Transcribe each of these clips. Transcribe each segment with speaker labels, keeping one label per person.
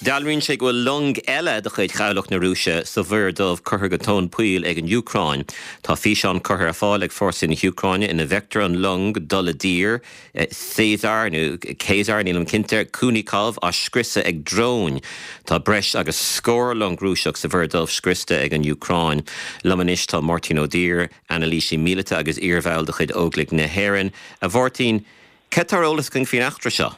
Speaker 1: Dealraíonn sé go bhfuil long eile de chuid Chabhlach na Rúise sa Mhuir Dhubh curtha go tóin poill ag an Úcráin. Tá físeán curtha ar fáil ag fórsaí na hÚcráine ina bhfeictear an long dul i dtír, Caesar nó Caesar, nílim cinnte, Kunikov á scriosadh ag dróin. Tá breis agus scór long Rúiseach sa Mhuir Dhubh scriosta ag an Úcráin. Liom anois tá Máirtín Ó Duibhir, anailísí míleata agus iarbhall de chuid Óglaigh na hÉireann. A Mháirtín, cad tá ar eolas againn faoin eachtra seo?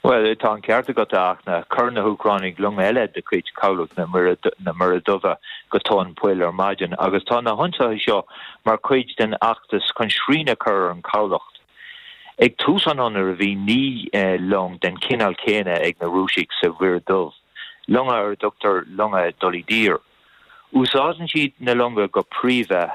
Speaker 2: Bhuel, tá an ceart agat, a Fhachtna. Chuir na hÚcránaigh long eile de chuid Chabhlach na Muire Duibhe go tóin poill ar maidin agus tá na hionsaithe seo mar chuid den fheachtas chun srian a chur ar an chabhlach. Ag tús an ionraidh bhí 9 long den chineál céanna ag na Rúisigh sa Mhuir Dhubh, longa ar a dtugtar longa dul i dtír. Úsáideann siad na longa go príomha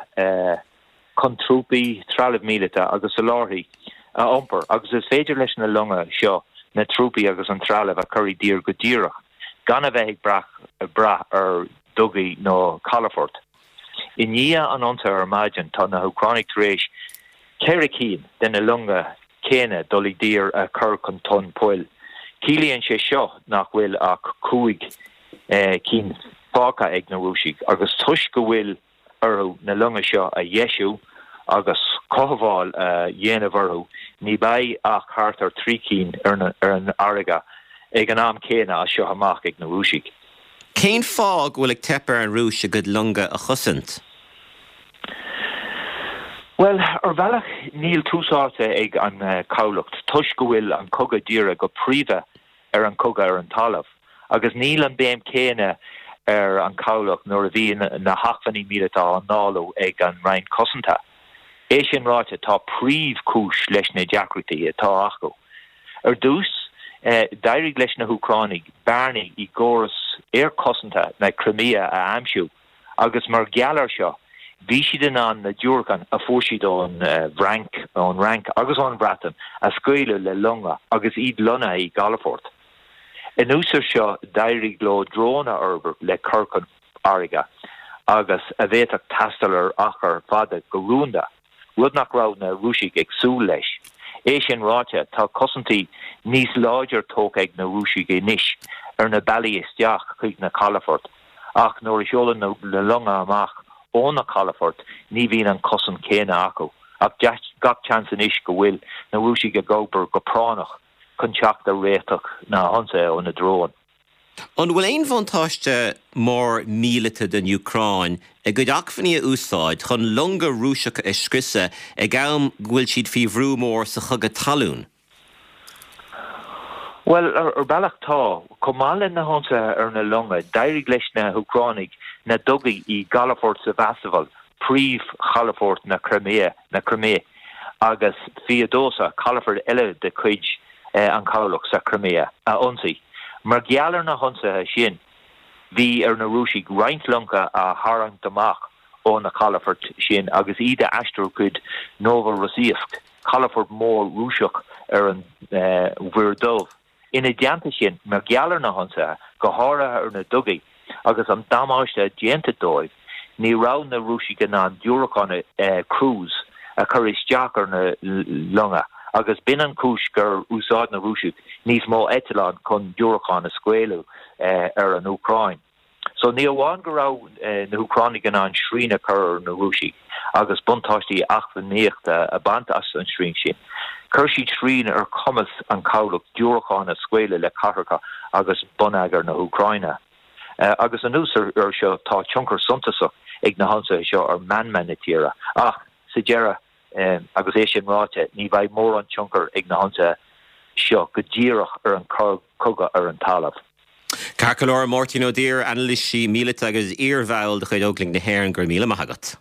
Speaker 2: chun trúpaí, trealamh míleata agus soláthairtí a iompar agus is féidir leis na longa seo na trúpaí agus an trealamh a chur i dtír go díreach gan a bheith ag brath ar dhugaí nó calafoirt. I ndiaidh an ionsaithe ar maidin tá na hÚcránaigh tar éis 4 cinn de na longa céanna dul i dtír a chur chun tóin poill. Ciallaíonn sé seo nach bhfuil ach 5 cinn fágtha ag na Rúisigh agus toisc go bhfuil orthu na longa seo a dheisiú agus cothabháil a dhéanamh orthu, ní bheidh ach thart ar 3 cinn ar an fharraige ag an am céanna as seo amach ag na Rúisigh.
Speaker 1: Cén fáth go bhfuil ag teip ar an Rúis a gcuid longa a chosaint?
Speaker 2: Bhuel, ar bhealach níl tús áite ag an chabhlach toisc go bhfuil an cogadh dírithe go príomha ar an chogadh ar an talamh, agus níl an béim chéanna ar an chabhlach nuair a bhíonn na hacmhainní míleata á ndáileadh ag an Roinn Cosanta. É sin ráite, tá príomhchúis leis na deacrachtaí atá acu. Ar dtús, d'éirigh leis na hÚcránaigh bearnaí i gcóras aerchosanta na Crimea a aimsiú, agus mar gheall air seo, bhí siad in ann na diúracáin a fuair siad ón bhFrainc, ón Fhrainc agus ón Bhreatain a scaoileadh le longa agus iad lonnaithe i gcalafoirt. Anuas air seo, d'éirigh leo dróin a fhorbairt le cur chun farraige agus a bhféadfadh taisteal ar achar fada go rúnda. rud nach raibh na Rúisigh ag súil leis. É sin ráite, tá cosaintí níos láidre tógtha ag na Rúisigh anois ar na bealaí isteach chuig na calafoirt, ach nuair a sheolann na longa amach ó na calafoirt ní bhíonn an chosaint chéanna acu. Ach gach seans anois go bhfuil na Rúisigh ag obair go práinneach chun teacht ar réiteach na hionsaithe ó na dróin.
Speaker 1: An bhfuil aon bhuntáiste mór míleata don Úcráin a gcuid acmhainní a úsáid chun longa Rúiseacha a scriosadh ag am go bhfuil siad faoi bhrú mór sa chogadh talún?
Speaker 2: Bhuel, ar bhealach tá. Chomh maith le na hionsaithe ar na longa, d'éirigh leis na hÚcránaigh na dugaí i gcalafort Sevastopol, príomhchalafort na Crimea, na Crimé, agus Feodosia, calafort eile de chuid an chabhlach sa Chrimea, a ionsaí. Mar gheall ar na hionsaithe sin, bhí ar na Rúisigh roinnt longa a tharraingt amach ó na calafoirt sin agus iad a aistriú chuig Novorossiysk, calafort mór Rúiseach ar an Mhuir Dhubh. Ina dteannta sin, mar gheall ar na hionsaithe, go háirithe ar na dugaí, agus an damáiste déanta dóibh, ní raibh na Rúisigh in ann diúracáin cruise a chur isteach ar na longa agus b'in an chúis gur úsáid na Rúisigh níos mó eitleán chun diúracáin a scaoileadh ar an Úcráin. So ní amháin go raibh na hÚcránaigh in ann srian a chur ar na Rúisigh agus buntáistí eacnamaíochta a bhaint as an srian sin, chuir siad srian ar chumas an chabhlach diúracáin a scaoileadh le cathracha agus bonneagar na hÚcráine. Agus anuas air seo tá tionchar suntasach ag na hionsaithe seo ar mheanma na tíre. Ach sa deireadh, Agus é sin ráite, ní bheidh mórán tionchair ag na hionsaithe seo go díreach ar an chogadh ar an talamh.
Speaker 1: Ceart go leor, Máirtín Ó Duibhir, anailísí míleata agus iarbhall de chuid Óglaigh na hÉireann, go raibh míle maith agat.